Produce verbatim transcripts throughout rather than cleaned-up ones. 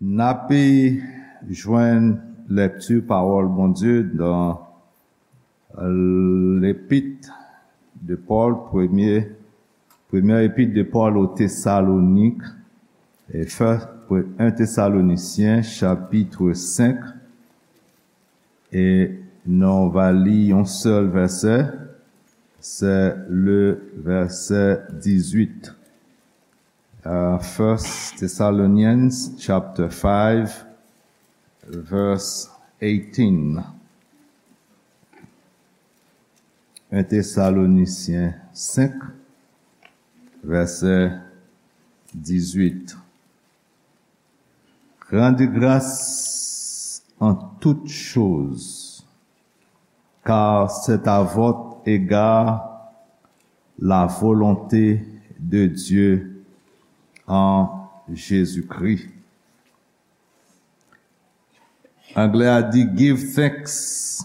N ape jwenn lekti pawòl Bondye nan Lepit de Pòl, premye, premye epit de Pòl o Tesalonik, e fè, en Tesalonisyen, chapit senk, e nou va li yon sèl vèsè, se le vèsè dizuit. Uh, First Thessalonians chapter five, verse eighteen. En Tesalonisyen senk, vèsè dizuit. Rendez grâce en toutes choses, car c'est à votre égard la volonté de Dieu en Jésus-Christ. Anglè a di, "Give thanks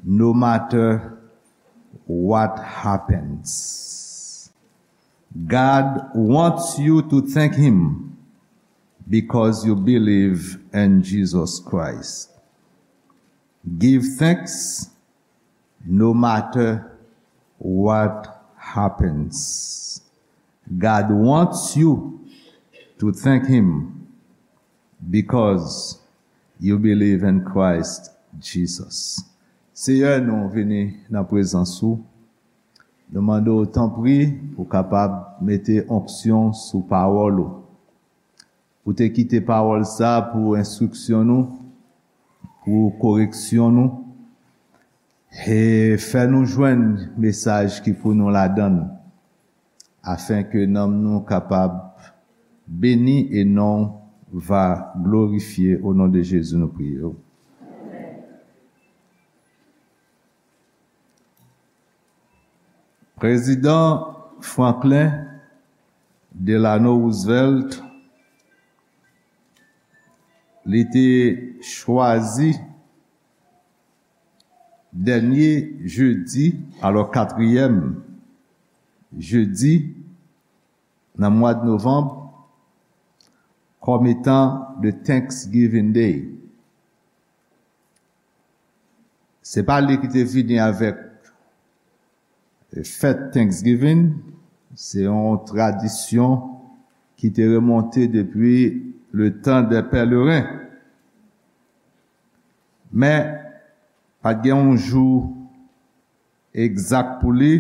no matter what happens." God wants you to thank Him because you believe in Jesus Christ. Give thanks no matter what happens. God wants you to thank Him because you believe in Christ Jesus. Seyè, nou vini nan prezans ou. Nou mande w, tanpri, pou w kapab mete onksyon sou pawòl ou. Ou te kite pawòl sa pou enstriksyon nou, pou koreksyon nou, e fè nou jwenn mesaj ki pou nou ladan l, afenke nanm nou kapab beni e non va glorifye. O non de Jezi, nou priye w. Prezidan Franklin Delano Roosevelt, li te chwazi dènye jedi, alò katriyèm jedi nan mwa de novanm, kòm etan de Thanksgiving Day. Se pa li ki te vini avèk fèt Thanksgiving, se yon tradisyon ki te remonte depi le tan dè pèleren. Men, pa t gen yon jou egzak pou li,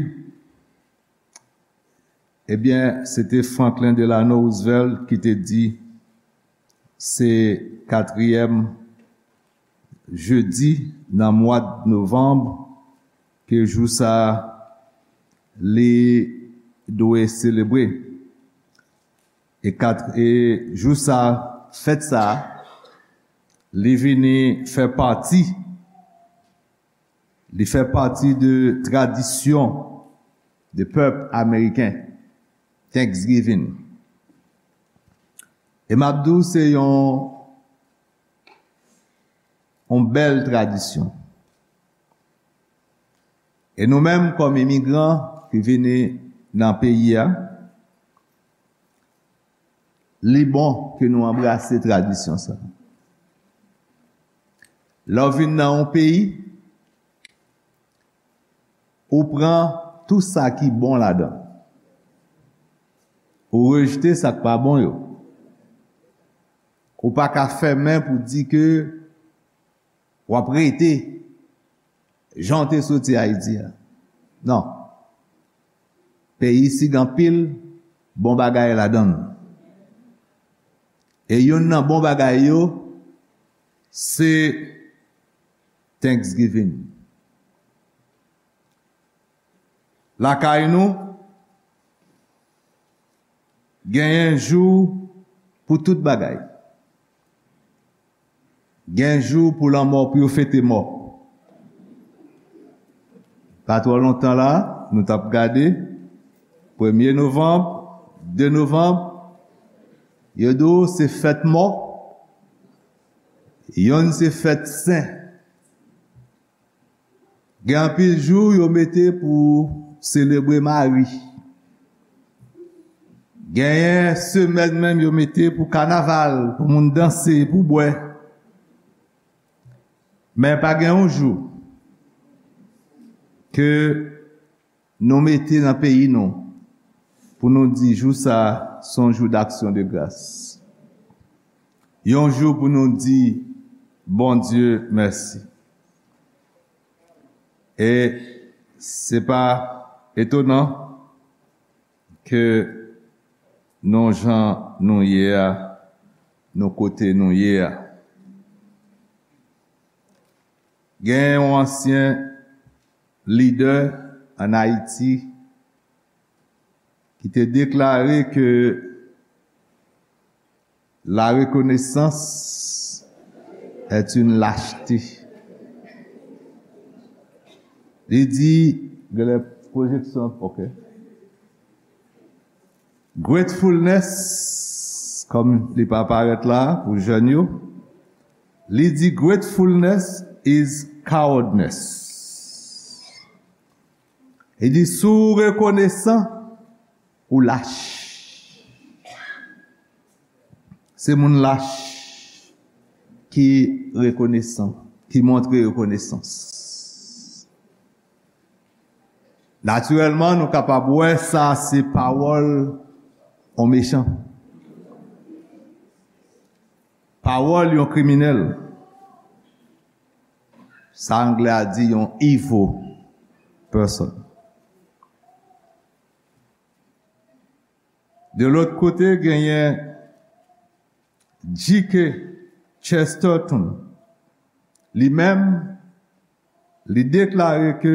ebyen, se te Franklin Delano Roosevelt ki te di, se katriyèm jedi nan mwa novanm ke jou sa a li dwe selebre. E kat-, e jou sa a, fèt sa a, li vini fè pati Li fè pati de tradisyon de pèp ameriken, Thanksgiving. E m ap di w, se yon, yon bèl tradisyon. E nou menm, kòm imigran ki vini nan peyi a, li bon ke nou anbrase tradisyon sa. Lè w vin nan yon peyi, ou pran tou sa ki bon ladan. Ou rejte sa k pa bon yo. Ou pa ka fèmen pou di ke w ap rete jan w te soti Ayiti a. Non. Peyi isit gen anpil bon bagay ladan l. E youn nan bon bagay yo, se Thanksgiving. Lakay nou, genyen jou pou tout bagay. Gen jou pou lanmò, pou yo fete mò. Pa twò lontan la, nou t ap gade, premye novanm, de novanm, yo di w se fèt mò, yonn se fèt sen. Gen anpil jou yo mete pou selebre mari. Genyen semèn menm yo mete pou kanaval, pou moun danse, pou bwè. Men pa gen yon jou ke nou mete nan peyi nou pou nou di jou sa a se yon jou d'action de grâce. Yon jou pou nou di Bondye mèsi. E se pa etonan ke nou jan nou ye a, nou kote nou ye a. Gen yon ansyen lidè ann Ayiti ki te deklare ke la reconnaissance est une lâcheté. Li di, genlè pwojeksyon, ok. Gratefulness, kòm li pa parèt la pou jèn yo, li di gratefulness is cowardness. Li di si w rekonesan, ou lach. Se moun lach ki rekonesan, ki montre rekonesans. Natirèlman, nou kapab wè sa se pawòl yon mechan. Pawòl yon kriminèl. Sa anglè a di yon evil person. De lòt kote, genyen G K Chesterton. Li menm, li deklare ke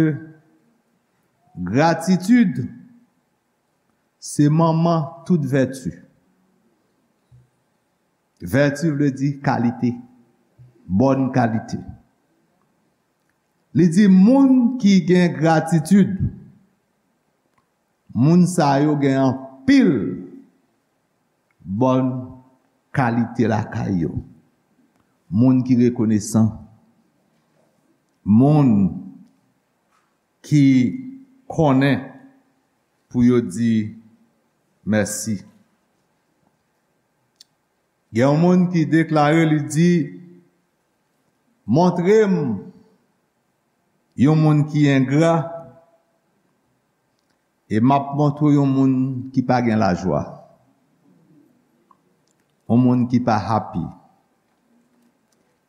gratitid se manman tout vèti. Vèti vle di kalite, bòn kalite. Li di moun ki gen gratitid, moun sa yo gen anpil bòn kalite lakay yo. Moun ki rekonesan, moun ki konnen pou yo di mèsi. Gen yon moun ki deklare, li di, montre m yon moun ki engra, e m ap montre w yon moun ki pa gen lajwa. Yon moun ki pa happy.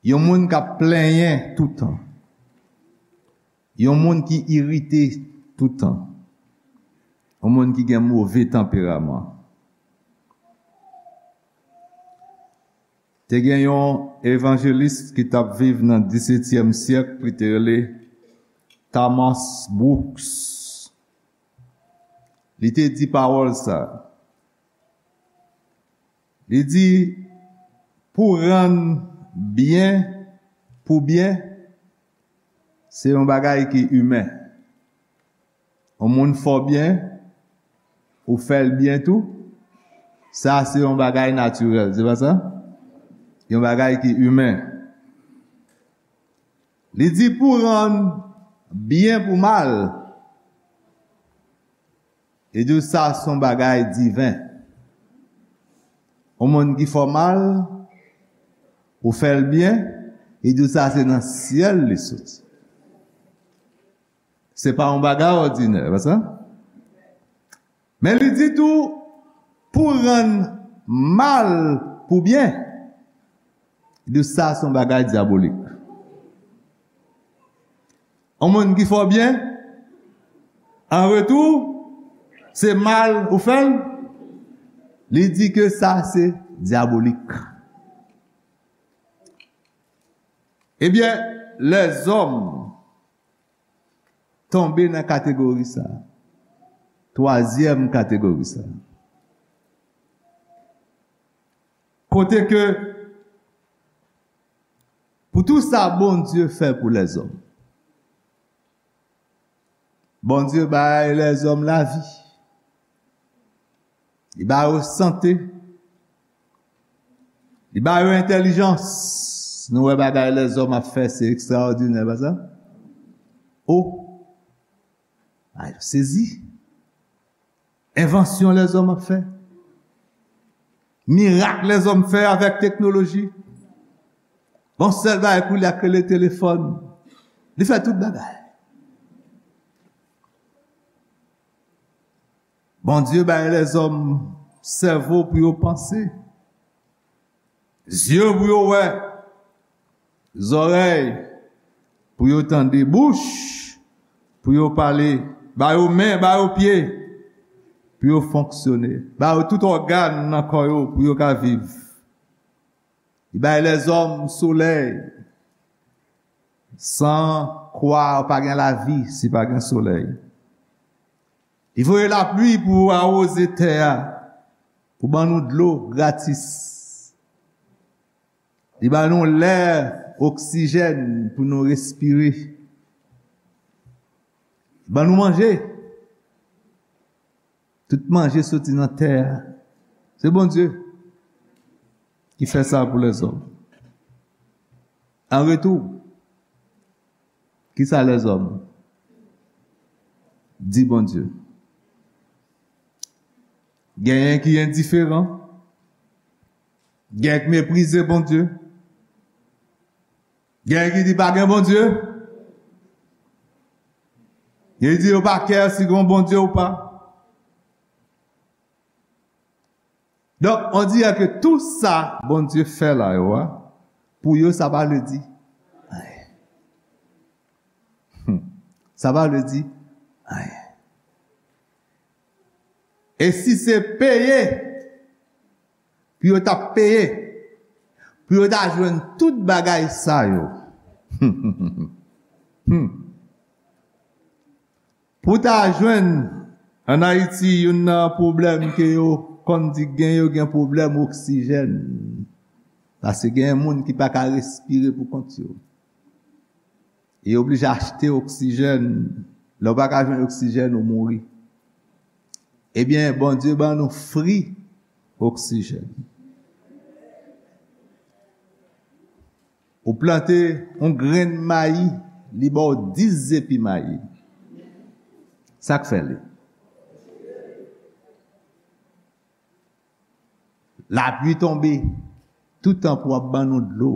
Yon moun k ap plenyen toutan. Yon moun ki irite toutan. Yon moun ki gen move tanperaman. Te gen yon evanjelis ki t ap viv nan disetyèm syèk, li te rele Thomas Brooks. Li te di pawòl sa. Li di, pou rann byen pou byen, se yon bagay ki imen. Yon moun fè w byen, ou fè l byen tou, sa se yon bagay natirèl, se pa sa? Yon bagay ki imen. Li di pou rann byen pou mal, li di w sa se yon bagay diven. Yon moun ki fè w mal, ou fè l byen, li di w sa se nan syèl li soti. Se pa yon bagay òdinè, pa sa? Men li di tou, pou rann mal pou byen, li di sa se yon bagay dyabolik. Yon moun ki fè w byen, an retou, se mal ou fè l, li di ke sa se dyabolik. Ebyen, lèzòm tonbe nan kategori sa a. Twazyèm kategori sa a. Kote ke, pou tou sa Bondye fè pou lèzòm, Bondye bay lèzòm lavi. Li ba yo sante. Li ba yo entèlijans. Nou wè bagay lèzòm ap fè, se ekstraòdinè, pa sa? O! A, yo sezi. Envansyon lèzòm ap fè. Mirak lèzòm fè avèk teknoloji. Bon, sèl bagay pou li ak rele telefòn. Li fè tout bagay. Bondye bay lèzòm sèvo pou yo panse, zye pou yo wè, zòrèy pou yo tande, bouch pou yo pale, ba yo men, ba yo pye pou yo fonksyone, ba yo tout ògàn nan kò yo pou yo ka viv. Li bay lèzòm solèy. San kwa, pa gen lavi si pa gen solèy. Li voye lapli pou awoze tè a, pou ban nou dlo gratis. Li ban nou lè, oksijèn pou nou respire. Li ban nou manje. Tout manje soti nan tè a. Se Bondye ki fè sa pou lèzòm. An retou, kisa lèzòm di Bondye? Genyen ki endiferan, genyen ki meprize Bondye, genyen ki di pa gen Bondye, genyen ki di yo pa kè si gen Bondye ou pa. Donk, on dirè ke tou sa Bondye fè la yo a, pou yo, sa pa vle di anyen. Hmm. Sa pa vle di anyen. E si se peye, pou yo t ap peye, pou yo ta jwenn tout bagay sa yo. Hmm. Pou ta jwenn, ann Ayiti, youn nan pwoblèm ke yo konn di gen, yo gen pwoblèm oksijèn. Paske gen moun ki pa ka respire pou kont yo. E yo oblije achte oksijèn. Lè w pa ka jwenn oksijèn, ou mouri. Ebyen, Bondye ban nou fri oksijèn. Ou plante yon grenn mayi, li ba w dis zepi mayi. Sa k fè li? Lapli tonbe, toutan pou w ap ban nou dlo.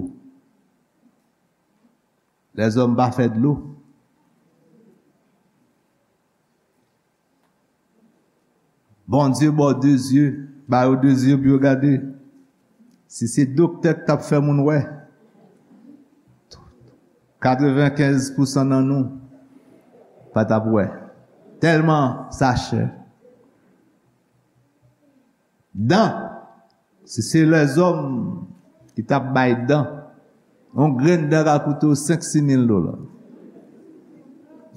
Lèzòm pa fè dlo. Bondye ba w de zye, ba yo de zye pou yo gade. Si se doktè k t ap fè moun wè, katrevenkenz pousan nan nou pa t ap wè. Tèlman sa chè. Dan, si se lèzòm ki t ap bay dan, yon grenn dan ka koute w senk, sis mil dola.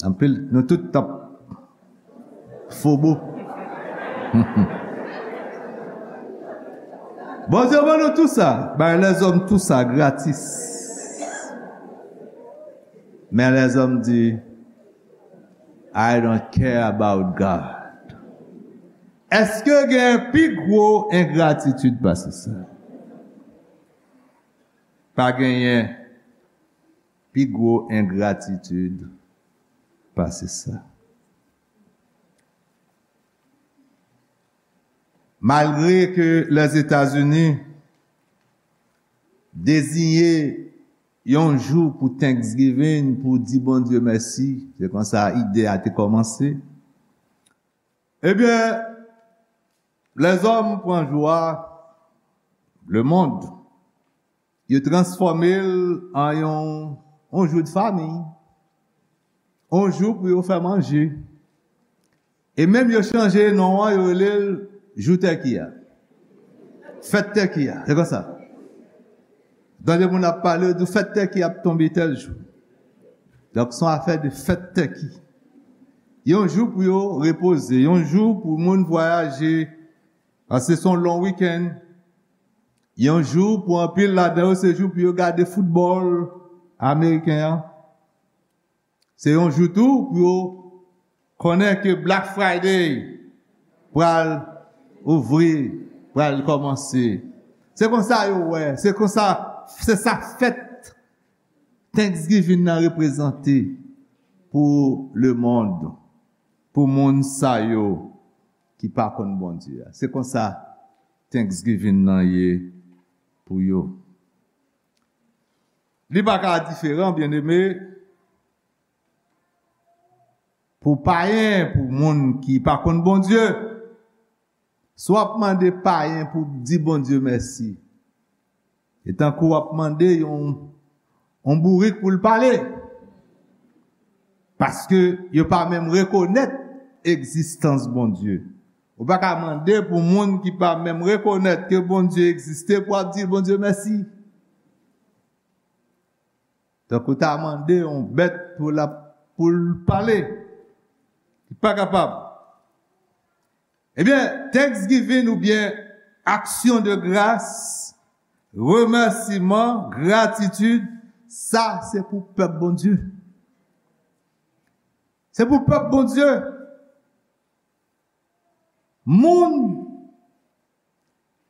Anpil, nou tout t ap fobo. Bondye ban nou tou sa, bay lèzòm tou sa gratis. Men lèzòm di, "I don't care about God." Èske gen pi gwo engratitid pase sa? Pa genyen pi gwo engratitid pase sa. Malgre ke Lèzetazini deziye yon jou pou Thanksgiving, pou di Bondye mèsi, se konsa ide a te kòmanse. Ebyen, lèzòm pran jou a, lemonn, yo transfòme l an yon, yon jou de fanmi, yon jou pou yo fè manje. E menm yo chanje non an, yo rele l jou tèki a. Fèt tèki a, se konsa. Tande moun ap pale, yo di fèt tèki ap tonbe tèl jou. Donk, se yon afè de fèt tèki. Yon jou pou yo repoze, yon jou pou moun vwayaje, paske se yon long wikenn. Yon jou pou anpil ladan yo, se jou pou yo gade foutbòl ameriken an. Se yon jou tou pou yo konnen ke Black Friday pral ouvri, pral kòmanse. Se konsa yo wè, se konsa, se sa fèt Thanksgiving nan reprezante pou lemonn, pou moun sa yo ki pa konn Bondye a. Se konsa Thanksgiving nan ye pou yo. Li pa ka diferan, byeneme, pou payen, pou moun ki pa konn Bondye. Si w ap mande payen pou di Bondye mèsi, e tankou w ap mande yon, yon bourik pou l pale. Paske yo pa menm rekonèt egzistans Bondye. Ou pa ka mande pou moun ki pa menm rekonèt ke Bondye egziste pou ap di Bondye mèsi. Tankou ta mande yon bèt pou l ap, pou l pale. Li pa kapab. Ebyen, Thanksgiving oubyen aksyon de gras, remèsiman, gratitid, sa se pou pèp Bondye. Se pou pèp Bondye. Moun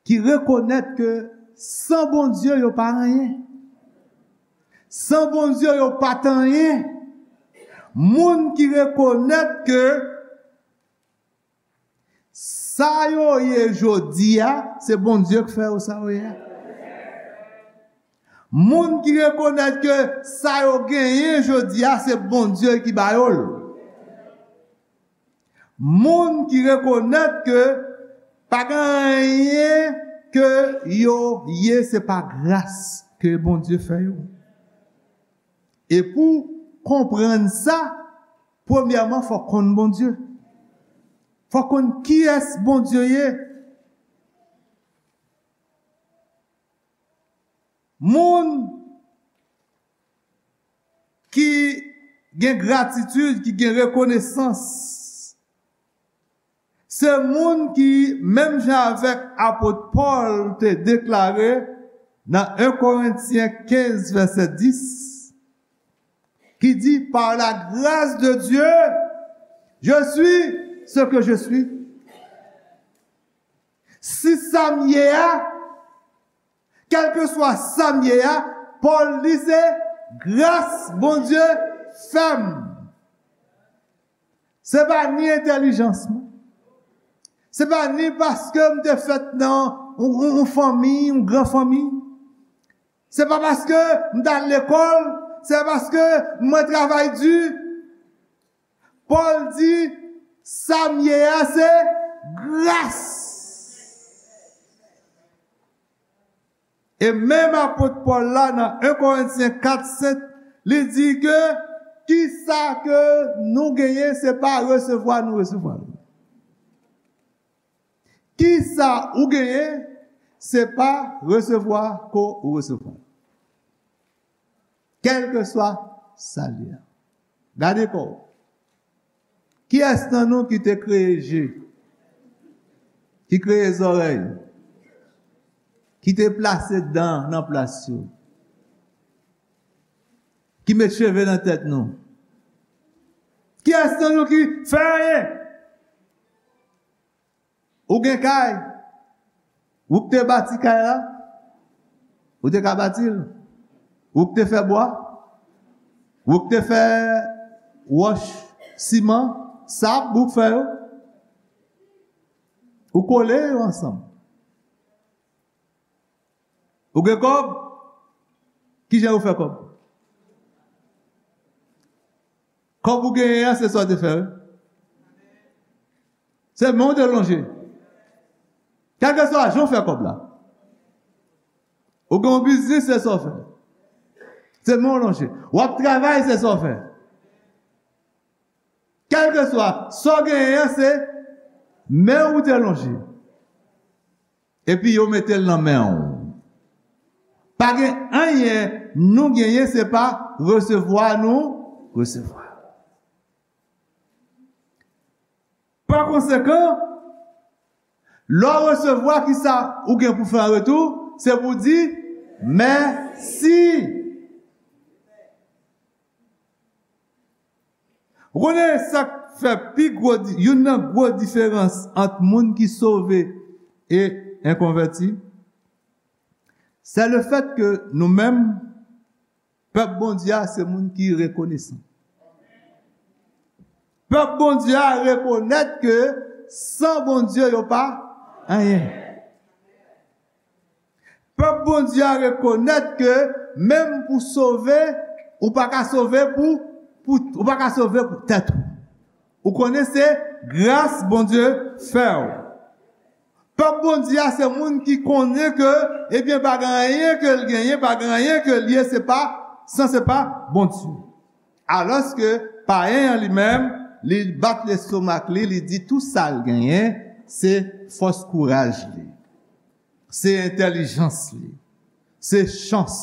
ki rekonèt ke san Bondye yo pa anyen. San Bondye yo pa t anyen. Moun ki rekonèt ke sa yo ye jodi a, se Bondye k fè yo sa yo ye a. Moun ki rekonèt ke sa yo genyen jodi a, se Bondye ki ba yo l. Moun ki rekonèt ke pa gen anyen ke yo ye, se pa gras ke Bondye fè yo. E pou konprann sa, premyèman, fò konn Bondye. Fò konn kiyès Bondye ye. Moun ki gen gratitid, ki gen rekonesans, se moun ki, menm jan avèk apot Pòl te deklare nan en Korentyen kenz, vèsè dis, ki di, par la grâce de Dieu, je suis ce que je suis. Si sa m ye a, kèlkeswa sa m ye a, Pòl di se gras Bondye fè m. Se pa ni entèlijans mwen. Se pa ni paske m te fèt nan yon, yon, yon fanmi, yon gran fanmi. Se pa paske m t al lekòl, se pa paske mwen travay di. Pòl di, sa m ye a, se gras. E menm apot Pòl la, nan en Korentyen kat sèt, li di ke kisa ke nou genyen, se pa resevwa nou resevwa l. Kisa ou genyen, se pa resevwa ke w resevwa. Kèlkeswa sa l ye a. Gade kò w. Kiyès nan nou ki te kreye je? Ki kreye zòrèy? Ki te plase dan nan plas yo? Ki met cheve nan tèt nou? Kiyès nan nou ki fè anyen? Ou gen kay? Ou k te bati kay la? Ou te ka bati l? Ou k te fè bwa? Ou k te fè wòch, siman, sab, ou k fè yo? Ou kole yo ansanm. Ou gen kòb? Kijan ou fè kòb? Kòb ou genyen an, se sa w te fè, wi. Se men w te lonje. Kèlkeswa jan w fè kòb la. Ou gen yon biznis, se sa w fè. Se men w lonje. W ap travay, se sa w fè. Kèlkeswa sa w genyen an, se men w te lonje. Epi yo mete l nan men w. Pa gen anyen nou genyen, se pa resevwa nou resevwa. Pa konsekan, lè w resevwa, kisa ou gen pou fè an retou? Se pou di mèsi. Ou konnen sa k fè pi gwo di-, youn nan gwo diferans ant moun ki sove e enkonvèti? Se le fèt ke nou menm, pèp Bondye a, se moun ki rekonesan. Pèp Bondye a rekonèt ke san Bondye yo pa anyen. Pèp Bondye a rekonèt ke menm pou sove, ou pa ka sove pou, pou, ou pa ka sove pou tèt ou. Ou konnen se gras Bondye fè w. Pèp Bondye a se moun ki konnen ke, ebyen, pa gen anyen ke l genyen, pa gen anyen ke l ye, se pa, san se pa Bondye. Alòske payen an li menm, li bat lestomak li, li di tou sa l genyen, se fòs kouraj li, se entèlijans li, se chans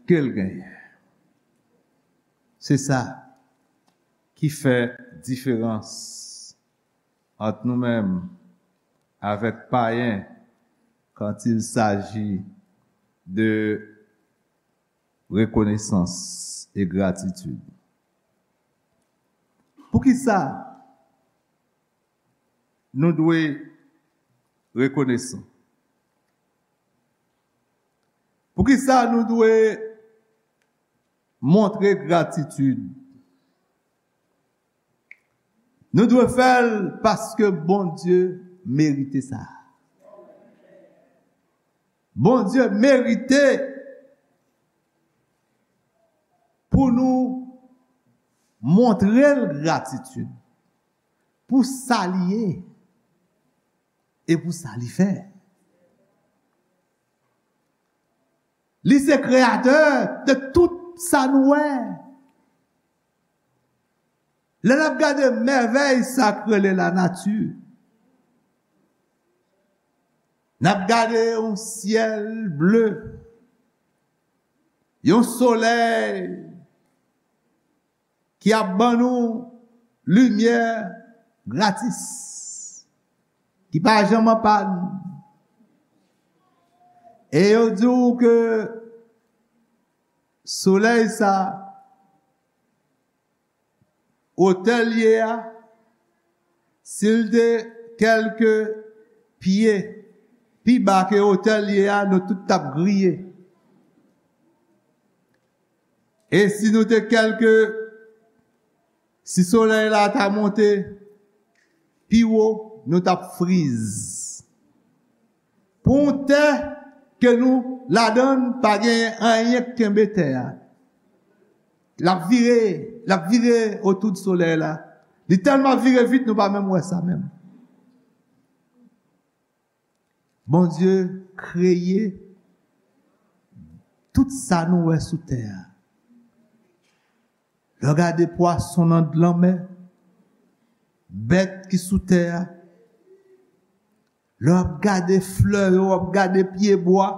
ke l genyen. Se sa ki fè diferans ant nou menm avèk payen quand il s'agit de reconnaissance et gratitude. Poukisa nou dwe rekonesan? Poukisa nou dwe montre gratitid? Nou dwe fè l paske Bondye merite sa. Bondye merite pou nou montre l gratitid pou sa li ye e pou sa li fè. Li se kreyatè de tout sa nou wè. Lè n ap gade mèvèy sa k rele lanati, n ap gade yon syèl ble, yon solèy ki ap ban nou limyè gratis, ki pa janm an pàn. E yo di w ke solèy sa, otè l ye a, si l te kèlke pye pi ba ke otè l ye a, nou tout t ap griye. E si nou te kèlke, si solèy la ta monte pi wo, nou t ap friz. Pou yon tè ke nou ladan l pa gen anyen k kenbe tè a. L ap vire, l ap vire otou de solèy la. Li tèlman vire vit, nou pa menm wè sa menm. Bondye kreye tout sa nou wè sou tè a. Lè w gade pwason nan lanmè, bèt ki sou tè a, lè w ap gade flè yo, w ap gade pyebwa,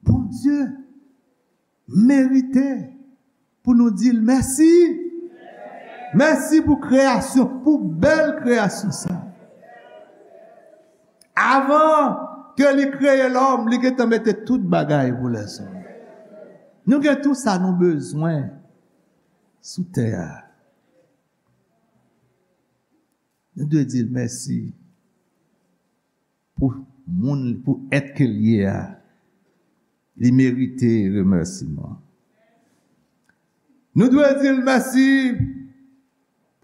Bondye merite pou nou di l mèsi. Mèsi pou kreyasyon, pou bèl kreyasyon sa. Avan ke li kreye lòm, li gentan mete tout bagay pou lèzòm. Nou gen tou sa nou bezwen sou tè a. Nou dwe di l mèsi pou moun, pou èt ke l ye a. Li merite remèsiman. Nou dwe di l mèsi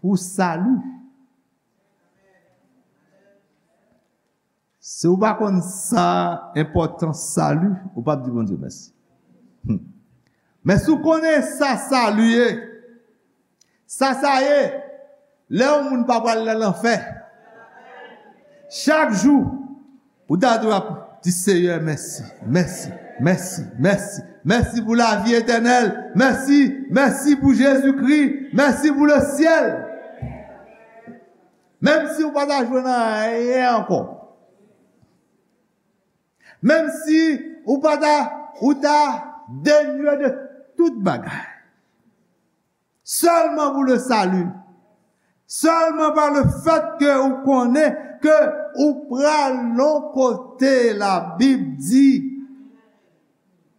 pou sali. Si w pa konn sa enpòtans sali, ou p ap di Bondye mèsi. Hmm. Men si w konnen sa sali ye, sa sa ye, lè yon moun pa pral nan lanfè, chak jou, ou ta dwe ap di Seyè mèsi, mèsi, mèsi, mèsi, mèsi pou lavi etènèl, mèsi, mèsi pou Jezikri, mèsi pou lesyèl. Menm si ou pa ta jwenn anyen ankò. Menm si ou pa ta, ou ta denye de tout bagay. Sèlman pou le sali. Sèlman pa le fèt ke ou konnen ke ou pral yon kote Labib di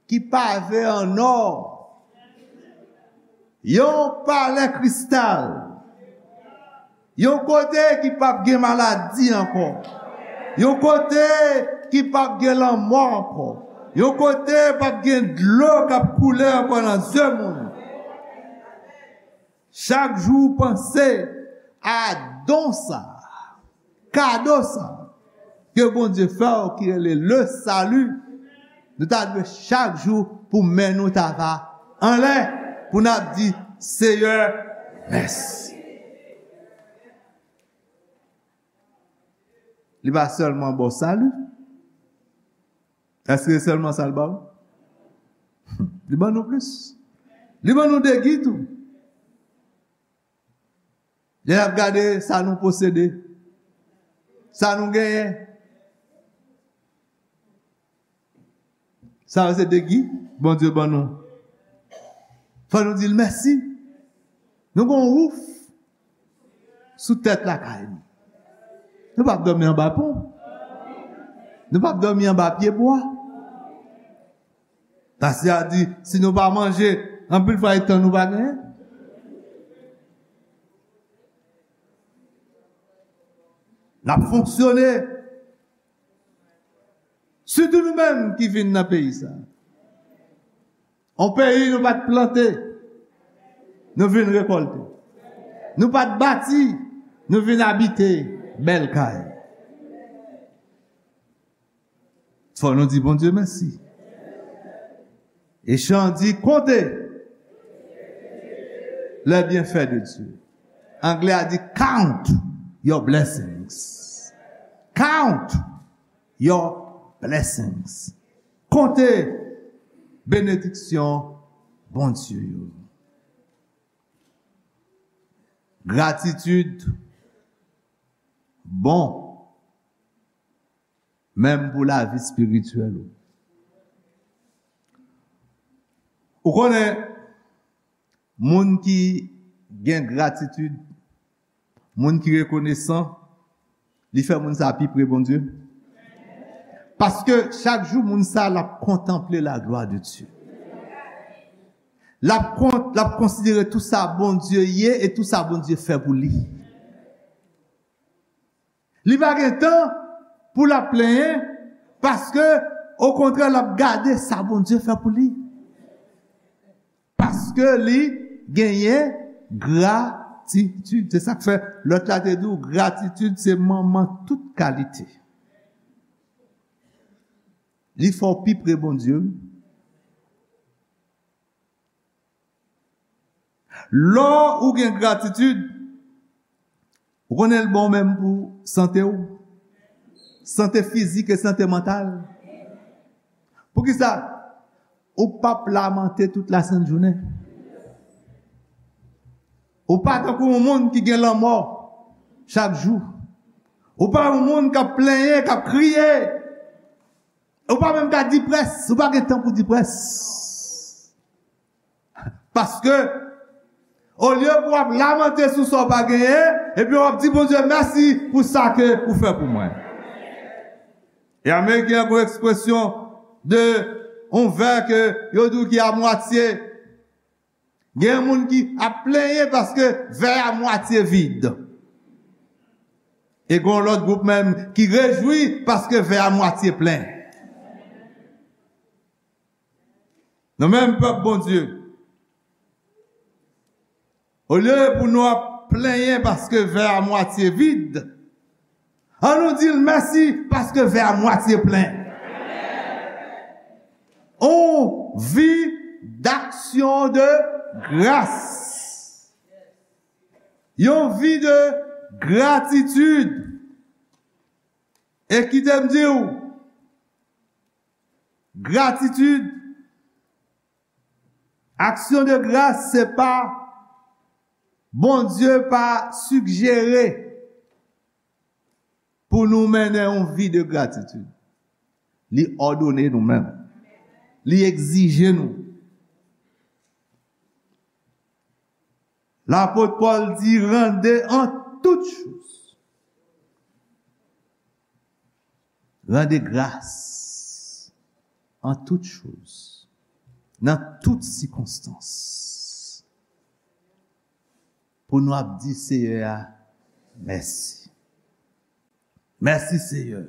ki pave an ò, yon palè kristal, yon kote ki p ap gen maladi ankò, yon kote ki p ap gen lanmò ankò, yon kote p ap gen dlo k ap koule ankò nan zye moun. Chak jou ou panse a don sa, kado sa, ke Bondye fè w ki rele le salut, nou ta dwe chak jou pou men nou ta va anlè, pou n ap di, Seyè, mèsi. Li pa sèlman ba w sali. Èske se sèlman sa l ba w? Li ban nou plis. Li ban nou degi tou. Lè n ap gade sa nou posede, sa nou genyen, sa yo se degi Bondye ban nou. Fò nou di l mèsi. Nou gen yon wouf sou tèt lakay nou. Nou p ap dòmi anba pon. Nou p ap dòmi anba pyebwa. Pastè a di, si nou pa manje, anpil fwa e tan nou pa genyen. N ap fonksyone. Sitou nou menm ki vin nan peyi sa. On peyi nou pa t plante, nou vin rekòlte. Nou pa t bati, nou vin abite bèl kay. Fò nou di Bondye mèsi. E chan di, comptez les bienfaits de Dieu. Anglè a di, count your blessings. Count your blessings. Konte benediksyon Bondye yo. Gratitid bon, menm pou lavi espirityèl ou. Ou konnen, moun ki gen gratitid, moun ki rekonesan, li fè moun sa pi pre Bondye. Paske chak jou moun sa l ap kontanple la glwa de Dye. L ap kon-, l ap konsidere tou sa Bondye ye e tou sa Bondye fè pou li. Li pa gen tan pou l ap plenyen, paske, okontrè, l ap gade sa Bondye fè pou li. Paske li genyen gratitid. Se sa k fè lòt la te di w, gratitid se manman tout kalite. Li fè w pi pre Bondye, wi. Lè ou gen gratitid, ou konnen l bon menm pou sante w, sante fizik e sante mantal. Poukisa? Ou p ap lamante tout lasent jounen. Ou pa tankou yon moun ki gen lanmò chak jou. Ou pa yon moun k ap plenyen, k ap kriye. Ou pa menm ka diprès, ou pa gen tan pou diprès. Paske, olye pou w ap lamante sou sa w pa genyen, epi w ap di Bondye mèsi pou sa ke ou fè pou mwen. E Ameriken an gen yon ekspresyon de yon vè ke yo di w ki a mwatye. Gen moun ki ap plenyen paske vè a mwatye vid. E gen yon lòt gwoup menm ki rejwi paske vè a mwatye plen. Nou menm pèp Bondye, olye pou nou ap plenyen paske vè a mwatye vid, ann nou di l mèsi paske vè a mwatye plen. On vi d'action de grâce. Yon vi de gratitid. E kite m di w, gratitid, aksyon de gras, se pa, Bondye pa sigjere pou nou mennen yon vi de gratitid. Li òdone nou menm. Li egzije nou. Lapot Pòl di, rendez en toutes choses. Rendez grâce en toutes choses. Nan tout sikonstans. Pou nou ap di Seyè a mèsi. Mèsi, Seyè.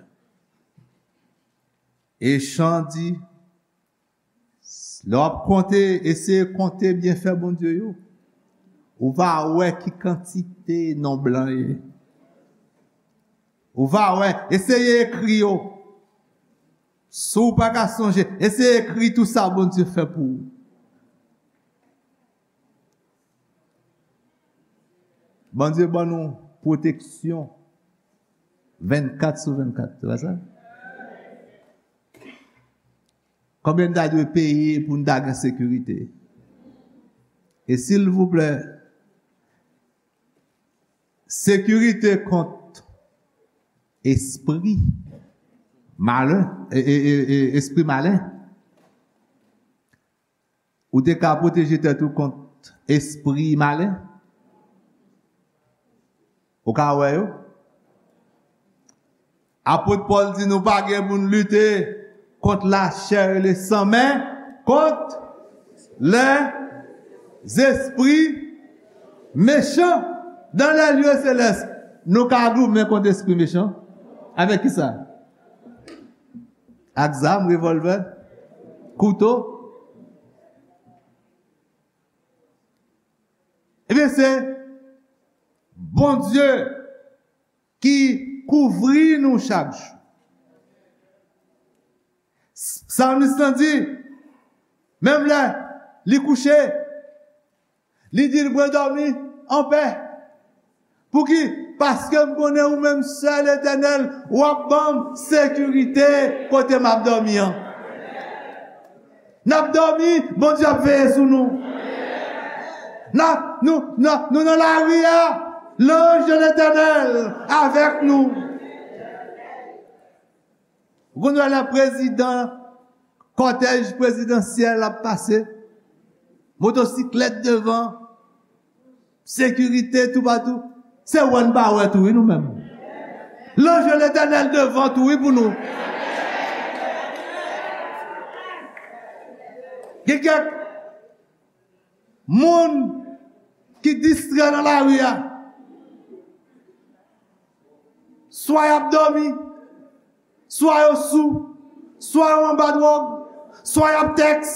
E chan di, lè w ap konte, eseye konte byenfè Bondye yo. Ou va wè ki kantite non blan ye. Ou va wè, eseye ekri yo. Si w pa ka sonje, eseye ekri tout sa Bondye fè pou ou. Bondye ban nou pwoteksyon vennkat sou vennkat, se pa sa? Konbyen n ta dwe peye pou n ta gen sekirite? E silvouplè, sekirite kont espri malen, e, e, e, e, espri malen. Ou te ka pwoteje tèt ou kont espri malen? Ou ka wè yo? Apot Pòl di nou pa gen pou n lite kont lachè e lesan, men kont lèzespri mechan dan lè lye selès. Nou ka goumen kont espri mechan. Avèk ki sa? Ak zam, revòlvè, kouto. Ebyen, se Bondye ki kouvri nou chak jou. Salmis lan di, menm lè li kouche, li di, "Mwen dòmi anpè." Pouki? Paske m konnen ou menm sèl, Etènèl, w ap ban m sekirite kote m ap dòmi an. N ap dòmi, Bondye ap veye sou nou. N ap, nou, nou, nou nan lari a, lanj de Letènèl avèk nou. Ou konn wè lè prezidan, kòtèj prezidansyèl ap pase, motosiklèt devan, sekirite toupatou. Se wè n pa wè tou, wi, nou menm. Lanj de Letènèl devan tou, wi, pou nou. Gen kèk moun ki distrè nan lari a. Swa y ap dòmi, swa yo sou, swa yo anba dwòg, swa y ap tèks,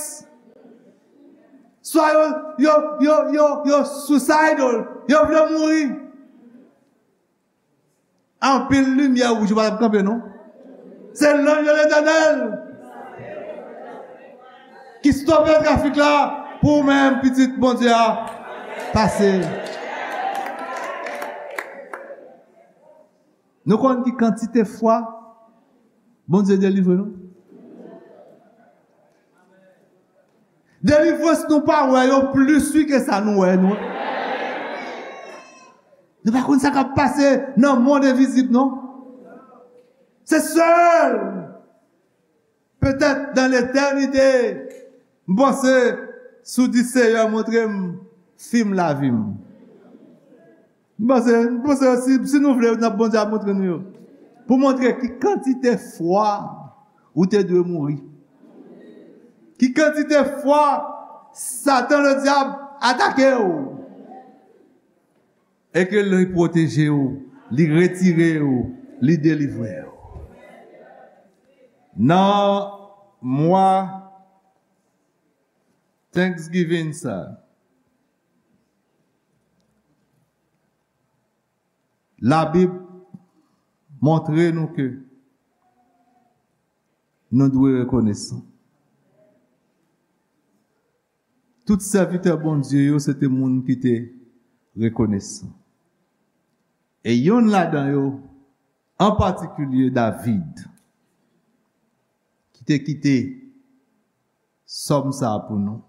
swa yo, yo, yo, yo, yo suicidal, yo vle mouri. Anpil limyè wouj ou pa t ap kanpe, non. Se lanj de Letènèl ki stope trafik la pou ou menm, pitit Bondye a, pase. Nou konn ki kantite fwa Bondye delivre nou? Delivrans nou pa wè yo plis wi ke sa nou wè nou. Nou pa konn sa k ap pase nan mond envizib, non. Se sèl, petèt, dan letènite, m panse, si w di, Seyè, montre m fim lavi m. M panse, m panse si, si nou vle, n ap, Bondye ap montre nou yo. Pou montre ki kantite fwa ou te dwe mouri. Ki kantite fwa Satan, le dyab, atake w. E ke li pwoteje w, li retire w, li delivre w. Nan mwa Thanksgiving sa, Labib montre nou ke nou dwe rekonesan. Tout sèvitè Bondye yo, se te moun ki te rekonesan. E yonn ladan yo, an patikilye David, ki te kite Sòm sa a pou nou.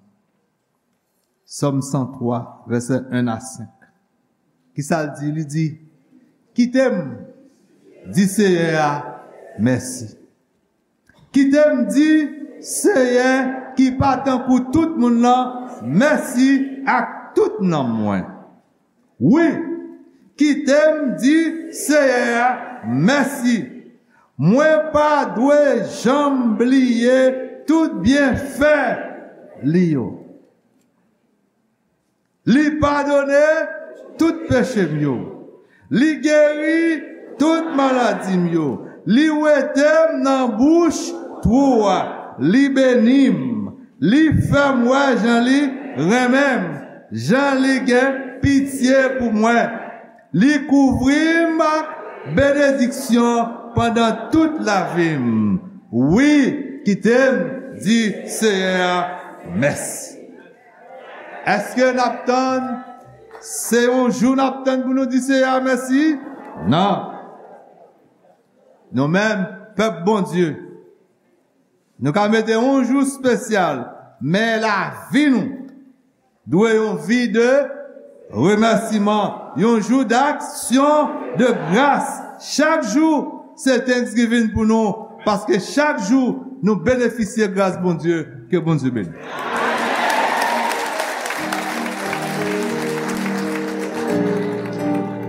Sòm san twa, vèsè en a senk. Kisa l di? Li di, "Kite m di Seyè a mèsi. Kite m di Seyè ki pa tankou tout moun nan mèsi ak tout nanm mwen." Wi, kite m di Seyè a mèsi. Mwen pa dwe janm bliye tout byenfè li yo. Li padone tout peche m yo. Li geri tout maladi m yo. Li wete m nan bouch twou a. Li beni m. Li fè m wè jan li renmen m, jan li gen pitye pou mwen. Li kouvri m ak Benediksyon pandan tout lavi m. Wi, kite m di Seyè a mèsi. Èske n ap tann? Se yon jou n ap tann pou nou di Seyè a mèsi? Non. Nou menm, pèp Bondye, nou ka mete yon jou espesyal, men lavi nou dwe yon vi de remèsiman, yon jou d'aksyon de gras. Chak jou, se Thanksgiving pou nou, paske chak jou, nou benefisye gras Bondye. Ke Bondye beni.